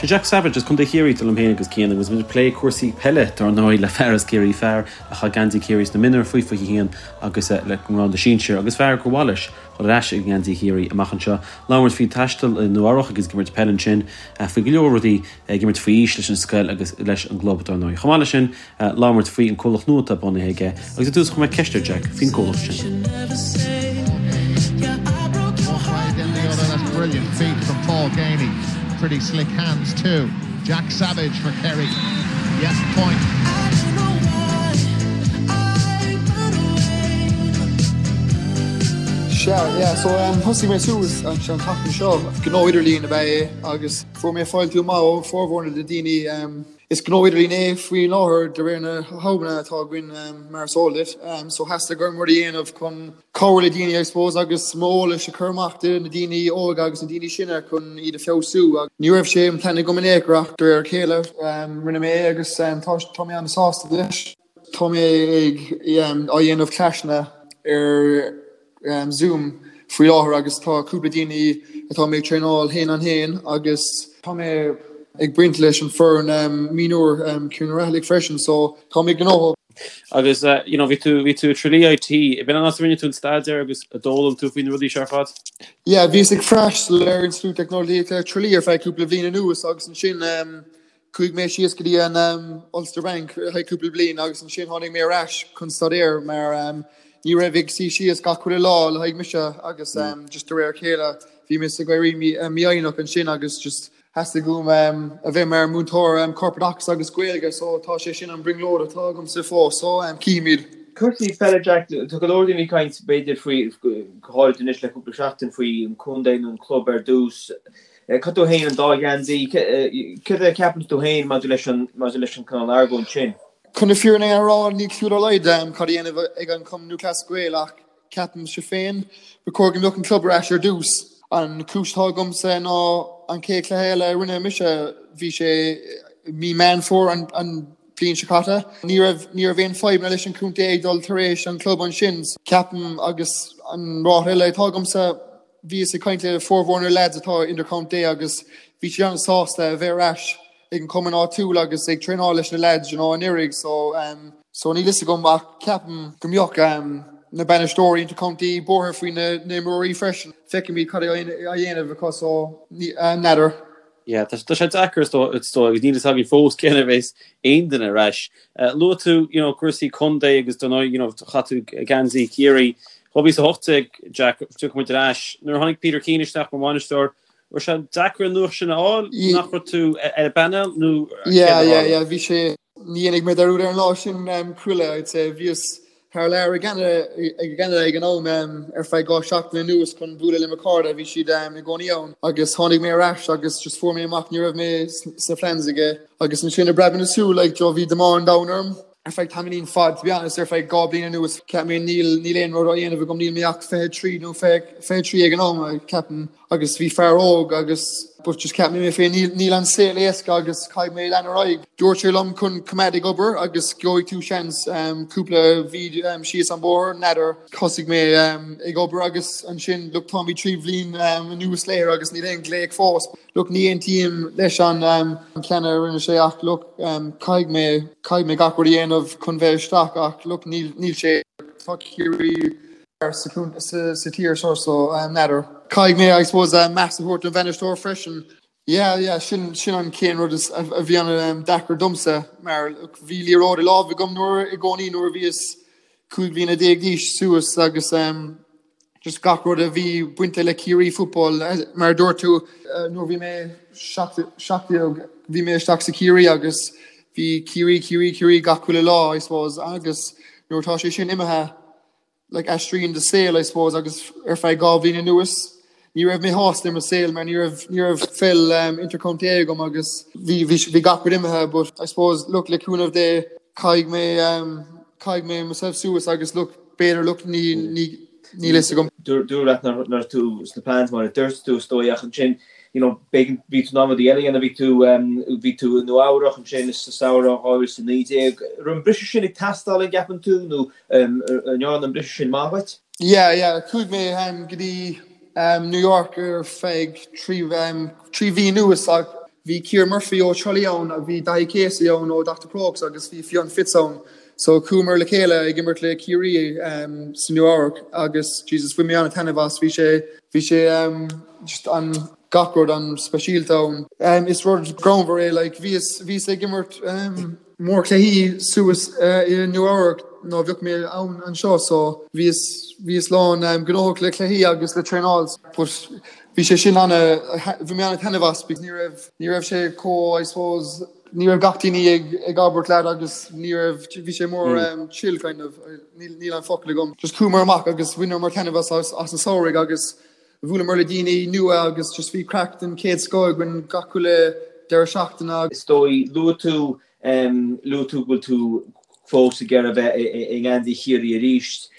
Tá Jack Savage as Contae Chiarraí liom féin agus Cian agus muid ag plé cúrsaí peile dar ndóigh le fear as Ciarraí, fear a chaith geansaí Chiarraí sna mionúir faoi 21 agus le an round sinsir agus fear gur mhaith leis dhul ar ais ag geansaí Chiarraí amach anseo. Labhair muid faoi taisteal i Nua Eabhrach agus ag imirt peile ansin, faoi go leor rudaí ag imirt faoi aois leis an scoil agus leis an gclub dar ndóigh. Chomh maith leis sin labhair muid faoi an comhlacht nua atá bunaithe aige agus ar dtús chuir mé ceist ar Jack faoin gcomhlacht sin. Brilliant feet from Paul Geaney. Pretty slick hands too. Jack Savage for Kerry. Yes, point. Sea, yeah, so um, thosaigh mé suas an tseachtain seo gnó idirlín ab ea é agus fuair mé fáiltiú maith ó formhór na daoine um, Is gnó idirlín é faoi láthair de réir na fadhbanna atá againn mar is eol duit. So theastaigh uaim rud a dhéanamh chun cabhrú le daoine I suppose agus m'eolas a chur amach do na daoine óga agus na daoine sine chun iad a feabhsú. Ní raibh sé im plean agam in aon chor ach de réir a chéile rinne mé é agus tá mé an-sásta leis. Tá mé ag á dhéanamh cleasanna ar Zoom faoi láthair agus tá cúpla daoine atá mé ag traenáil fhéin an fhéin agus tá mé ag baint leis an foireann mionúir Ciarán Ó Raghallaigh freisin so tá mé gnóthach. Agus you know bhí tú bhí tú i Tralee IT, b'in an áit a rinne tú an staidéar agus a d'fhoghlaim tú faoi na rudaí seo ar fad? Yeah, bhíos ag freastal ar Institiúid Teicneolaíochta Tralee ar feadh cúpla bliain anuas agus ansin Chuaigh mé síos go dtí an Ulster Bank le haghaidh cúpla bliain agus ansin tháinig mé ar ais chun staidéar mar ní raibh ag suí síos gach chuile lá le haghaidh mise agus just de réir a chéile bhí mise ag éirí mífhoighneach ansin agus just theastaigh uaim a bheith mar múinteoir corpoideachas agus Gaeilge so tá sé sin an brionglóid atá agamsa fós so cífimid. Cúrsaí peile Jack, tá go leor daoine ag caint b'fhéidir faoi, go háirid anois le cúpla seachtain faoi an contae nó an club ar dtús. Chaith tú féin an dá gheansaí. Céard a cheapann tú féin maidir leis an maidir leis an cineál argóint sin? Chun na fírinne a rá, níl clue dá laghad agam cad a dhéanamh ag an Cumann Lúthchleas Gael ach ceapaimse féin ba chóir go mbeadh an club ar ais ar dtús. An chúis atá agamsa ná an chéad chluiche eile a rinne mise bhí sé mí Meán Fómhair an bhliain seo caite. Ní raibh ní raibh aon fadhbanna leis an chontae ag dul tar éis an club ansin. Ceapaim agus an rud eile atá agamsa Bhíos ag caint le formhór na leaids atá idirchontae agus bhí siad an-sásta a bheith ar ais ag an chumann áitiúil agus ag traenáil leis na leaids you know anuraidh so um so níl fhios agam ach ceapaim go mbeadh um na bainisteoirí intercounty buartha faoi na n-imreoirí freisin. Feicfimid cad é á dhéanamh acu so n'fheadar. Yeah, tá sé deacair is dóigh agus níl fhios againn fós cén uair a bheas aon duine ar ais. Luaigh tú, you know, cúrsaí contae agus dar ndóigh, you know, chaith tú geansaí Chiarraí. 2018, Jack, tiocfaidh muid ar ais. Nuair a tháinig Peter Keane isteach mar bhainisteoir, raibh sé deacair an nuacht sin a fháil nach raibh tú ar an bpainéal nó céard a tharla? Yeah, yeah, yeah, bhí sé, ní dhéanfaidh mé dearúd ar an lá sin, Cruilla, I'd say. Bhíos thar lear i gCeanada ag an am ar feadh 2 seachtain anuas chun bualadh le mo chairde, bhí siad i gcónaí ann agus tháinig mé ar ais agus just fuair mé amach ní raibh mé sna plans aige agus ansin i bpreabadh na súl like Joe bhí díomá an domhain orm ar feadh tamaillín fad to be honest ar feadh 2 bliain anuas cheap mé níl níl aon rud á dhéanamh agam níl mé ach 23 nó 23 ag an am ceapaim agus bhí fear óg agus but just cheap mé féin níl níl an saol éasca agus caithfidh mé lean ar aghaidh. Dúirt sé liom chun coimeád ag obair agus gheobhaidh tú seans um, cúpla mhí um, síos an bóthar n'fheadar. Thosaigh mé um, ag obair agus ansin look tá mé 3 bhliain um, anuas léir agus níl aon glaoch fós. Look ní aontaím leis an um, cinneadh a rinne sé ach look um, caithfidh mé caithfidh mé gach rud a dhéanamh chun bheith isteach ach look níl níl sé tá Ciarraí sa tír seo so n'fheadar. Caithfidh mé I suppose meas a thabhairt don bhainisteoir freisin. Yeah, yeah, sin sin an chéad rud a bhí an-deacair domsa mar bhí liathróid i lámh agam nuair i gcónaí nuair a bhíos 15 bliana d'aois suas agus just gach rud a bhí bainte le Ciarraí football mar a dúirt tú nuair bhí mé 17 bhí mé isteach sa Ciarraí agus bhí Ciarraí Ciarraí Ciarraí gach chuile lá I suppose agus nuair atá sé sin imithe like athraíonn do saol I suppose agus ar feadh 2 bhliain anuas ní raibh mé shásta i mo saol mar ní raibh ní raibh peil um, intercounty agam agus bhí bhí bhí gach rud imithe but I suppose look le cúnamh Dé caithfidh mé um, caithfidh mé myself suas agus look b'fhéidir look ní ní níl fhios agam. Dúradh leat nach raibh tú sna plans mar a dúirt tú is dóigh ach ansin you know b'éigean bhí tú in ann rudaí eile a dhéanamh bhí tú um, bhí tú i Nua Eabhrach ansin sa samhradh 2019. Raibh an briseadh sin ag teastáil an gceapann tú nó An ndearna an briseadh sin maith dhuit? Yeah, yeah, chuaigh mé go dtí New York ar feadh 3 mhí anuas ach Bhí Ciara Murphy ó Trá Lí ann, bhí Daithí Casey ann ó Dr Crokes agus bhí Fionn Fitz ann. So chuamar le chéile ag imirt le Ciarraí sa Nua Eabhrac agus Jesus bhain mé an-taitneamh as. Bhí sé bhí sé just an gach rud an speisialta ann. Is rud greannmhar é like bhíos bhíos ag imirt mórchluichí suas i Nua Eabhrac ná bheadh mé ann anseo so bhíos bhíos lán gnóthach le cluichí agus le traenáil but Bhí sé sin ana, bhain mé ana taitneamh as because ní raibh, ní raibh sé chomh, I suppose, ní raibh gach daoine ag, ag abairt leat agus ní raibh, bhí sé mór chill kind of, níl, níl an focal agam. Just chuamar amach agus bhaineamar taitneamh as, as, as an samhradh agus bhuaileamar le daoine nua agus just bhí craic den chéad scoth againn gach uile deireadh seachtaine. Is dóigh, luaigh tú Luaigh tú go bhfuil tú fós ag iarraidh a bheith i ngeansaí Chiarraí arís.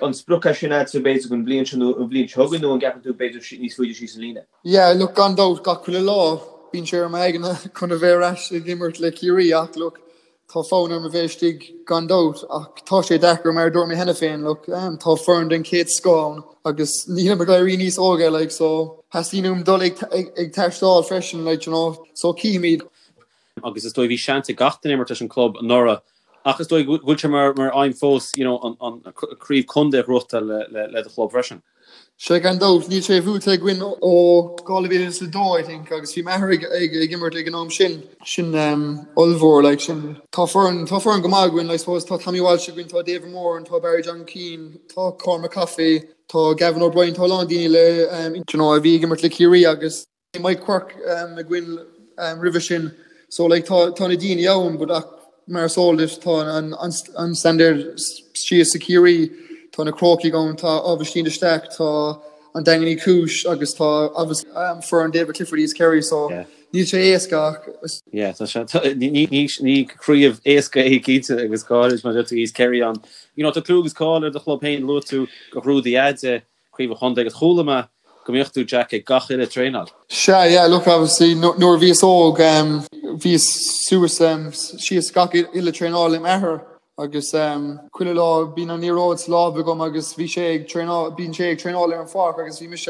An sprioc é sin agatsa b'fhéidir don bhliain seo nó an bhliain seo chugainn nó an gceapann tú b'fhéidir níos faide síos an líne? Yeah, look, gan dabht, gach uile lá bíonn sé ar m'aigne chun a bheith ar ais ag imirt le Ciarraí ach look, tá fonn orm a bheith istigh gan dabht ach tá sé deacair mar a dúirt mé cheana féin, look, tá foireann den chéad scoth ann agus nílim ag éirí níos óige like so theastaíonn uaim dul ag ag taisteal freisin like you know so cífimid. Agus is dóigh bhí seans ag gach duine imirt leis an club anuraidh ach is dóigh go bhfuil sé mar mar aidhm fós you know an an craobh contae a ghnóthachtáil le le le do chlub freisin. Sea gan dabht, níl sé buaite againn ó 2002 I think agus bhí m'athair ag ag ag imirt ag an am sin. Sin ollmhór like sin. Tá foireann tá foireann go maith againn I suppose tá Tommy Walsh againn, tá David Moran, tá Barry John Keane, tá Cormac Coffey, tá Gavin O'Brien, tá a lán daoine le you know a bhí ag imirt le Ciarraí agus Mike Quirke againn roimhe sin so like tá tá na daoine ann but ach mar is eol duit tá an an an standard síos sa Ciarraí tá na Crócaigh ann tá Aibhistín de Staic tá an Daingean Uí Chúis agus tá obviously foireann David Clifford East Kerry so Yeah. níl sé éasca ach Yeah, tá sé tá ní ní ní ní craobh éasca é cinnte agus go háirid mar tá East Kerry ann. You know tá clú agus cáil ar do chlub féin luaigh tú gur ghnóthaigh do dhaid Craobh an Chontae agus chuala mé go mbíodh tú, Jack, ag gach uile traenáil. Sea, yeah, look, obviously, nuair a bhíos óg, bhíos suas, síos gach uile traenáil le m'athair agus chuile lá bíonn an liathróid sa lámh agam agus bhí sé ag traenáil, bíonn sé ag traenáil ar an pháirc agus bhí mise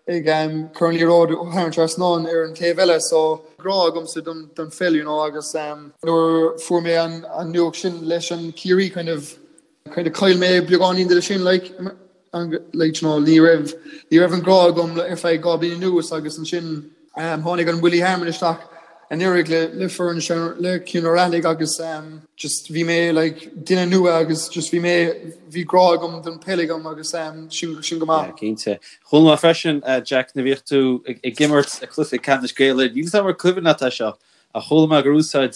ag cur an liathróid thar an trasnán ar an taobh eile so grá agamsa don, don pheil, you know, agus nuair fuair mé an, an nuacht sin leis an Ciarraí kind of, Kind of chaill mé beagáinín de sin like like you know ní raibh ní raibh an grá agam ar feadh 2 bliain anuas agus ansin um, tháinig an Willie Harmon isteach anuraidh le le foireann sin le Cian Ó Raghallaigh agus um, just bhí mé like duine nua agus just bhí mé bhí grá agam don peil agam agus um, sin sin go maith. Yeah, cinnte. Chuala mé freisin, uh, Jack, nuair a bhíodh tú ag, ag imirt i cluiche ceannais Gael Linn. Níl a fhios agam ar cuimhin leat é seo. Ach chuala mé gur úsáid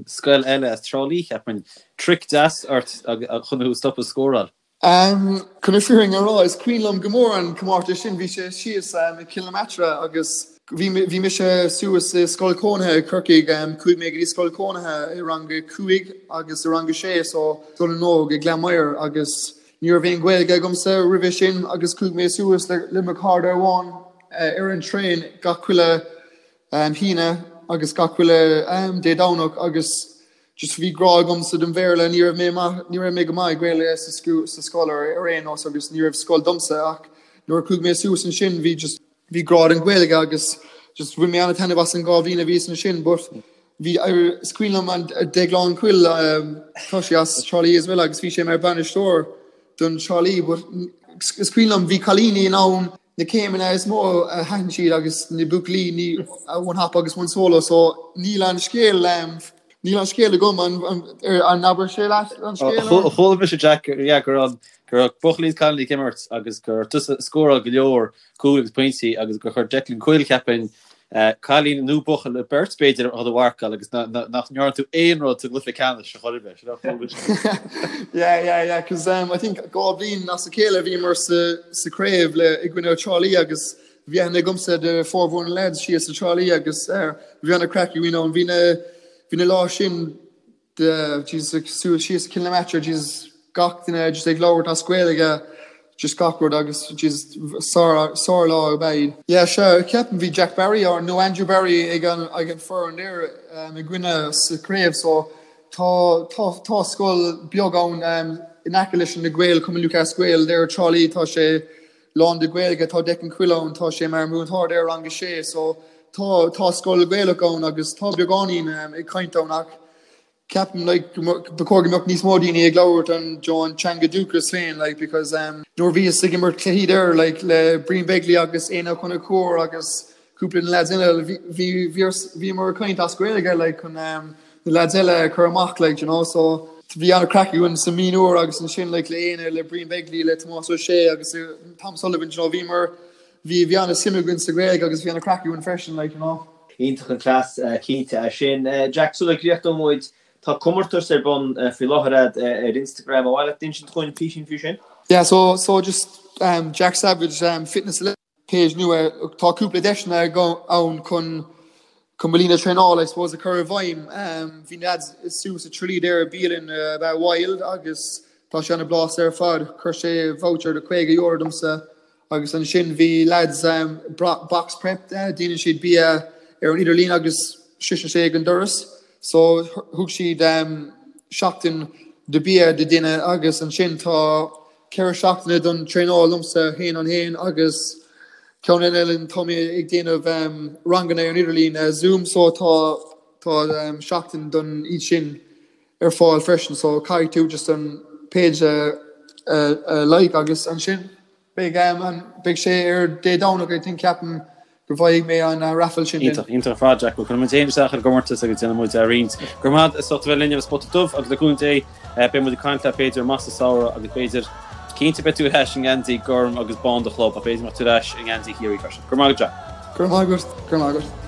scoil eile as Trá Lí, cheapfainn, trick deas ort chun thú a stopadh scóráil. Chun na fírinne a rá, is cuimhin liom go mór an comórtas sin. Bhí sé síos i Cill na Martra agus bhí mise suas i scoil cónaithe i Corcaigh. Chuaigh mé go dtí scoil cónaithe i rang a 5 agus i rang a 6 so Scoil na nÓg i Gleann Maghair agus ní raibh aon Ghaeilge agamsa roimhe sin agus chuaigh mé suas le mo chairde amháin ar an traein gach chuile hAoine agus gach uile Dé Domhnach agus just bhí grá agamsa don Bhéarla, ní raibh mé maith, ní raibh mé go maith i Gaeilge sa scoil ar ar aon nós agus ní raibh scoil domsa ach nuair a chuaigh mé suas ansin bhí just bhí grá don Ghaeilge agus just bhain mé an-taitneamh as an 2 bhliain a bhíos ansin but bhí is cuimhin liom an Déaglán Quill tá sé as Trá Lí as well agus bhí sé mar bainisteoir don Trá Lí but is cuimhin liom bhí cailíní in ann na céimeanna is mó a thaitin siad agus na buachaillí ní one hop agus one solo so níl an scéal níl an scéal agam an an abair sé leat an scéal or? Chuala mise Jack yeah go raibh go raibh buachaillí is cailíní ag imirt agus gur tusa a scóráil go leor cúil agus pointí agus gur chuir Declan Quill cheapfainn cailín nó buachaill beirt b'fhéidir a mharcáil agus nach ndearna tú aon rud sa gcluiche ceannais a chor ar bith. Sin a chuala mise. Yeah, yeah, yeah, cos um, I think 2 bhliain as a chéile bhíomar sa, sa craobh le i gcoinne Trá Lí agus bhí aithne agamsa de formhór na lads síos sa Trá Lí agus uh, bhí an-craic againn ann. Bhí na, bhí na lá sin de Jesus suas síos Cill na Martra Jesus gach duine just ag labhairt as Gaeilge just gach rud agus Jesus sár sár lá ab ea iad. Yeah sure ceapaim bhí Jack Barry or nó Andrew Barry ag an ag an foireann there um, i gcoinne sa craobh so tá tá tá scoil beag ann um, in aice leis na Gaeil Cumann Lúthchleas Gael there Trá Lí tá sé lán de Gaeilge tá Declan Quill ann tá sé mar múinteoir there rang a sé so. Tá tá scoil Gaelach ann agus tá beagáinín ag caint ann ach ceapaim like ba chóir go mbeadh níos mó daoine ag labhairt an you know an teanga dúchas féin like because nuair bhíos ag imirt cluichí there like le Brian Begley agus Éanna Ó Conchúir agus cúpla de na lads eile bhí bhí bhíomar ag caint as Gaeilge like chun na lads eile a chur amach like you know so bhí an-craic againn sa mionúr agus ansin like le Éanna le Brian Begley le Tomás Ó Sé agus Tom Sullivan you know bhíomar Bhí, bhí an-suim againn sa Ghaeilge agus bhí an-craic againn freisin, like, you know. Iontach an cleas cinnte é sin. Jack, sula gcríochnóidh muid, tá comórtas ar bun faoi láthair a'd ar Instagram. Ar mhaith leat insint dhúinn písín faoi sin? Yeah, so, so just Jack Savage Fitness page nua, tá cúpla deiseanna ann chun chun mo líne traenála I suppose a chur i bhfeidhm. Bhí na lads suas i Tralee there i bialann uh, Wild agus tá sé ana-bhlasta ar fad. Chuir sé voucher de €50 domsa Agus ansin bhí lads box prep, déanann siad bia ar an idirlíon agus sroiseann sé ag an doras. So thug siad seachtain de bia do duine agus ansin tá 4 seachtaine don traenáil liomsa haon on haon agus ceann eile tá mé ag déanamh ranganna ar an idirlíon Zoom so tá tá seachtain don iad sin ar fáil freisin so caithfidh tú just an page a a like agus ansin beidh an beidh sé ar Dé Domhnach I think ceapaim go bhfaighidh mé an raffle sin then. Iontach, iontach ar fad Jack, bhuel cuirfidh muid féin isteach ar an gcomórtas agus déanfaidh muid roinnt. Go raibh maith agat as ucht a bheith linn ar an Spota Dubh agus le cúnamh Dé beidh muid ag caint leat b'fhéidir amach sa samhradh agus b'fhéidir cinnte beidh tú ar ais i ngeansaí gorm agus bán do chlub ach b'fhéidir go mbeadh tú ar ais i ngeansaí Chiarraí freisin. Go raibh maith agat Jack. Go raibh maith agat, go raibh maith agat.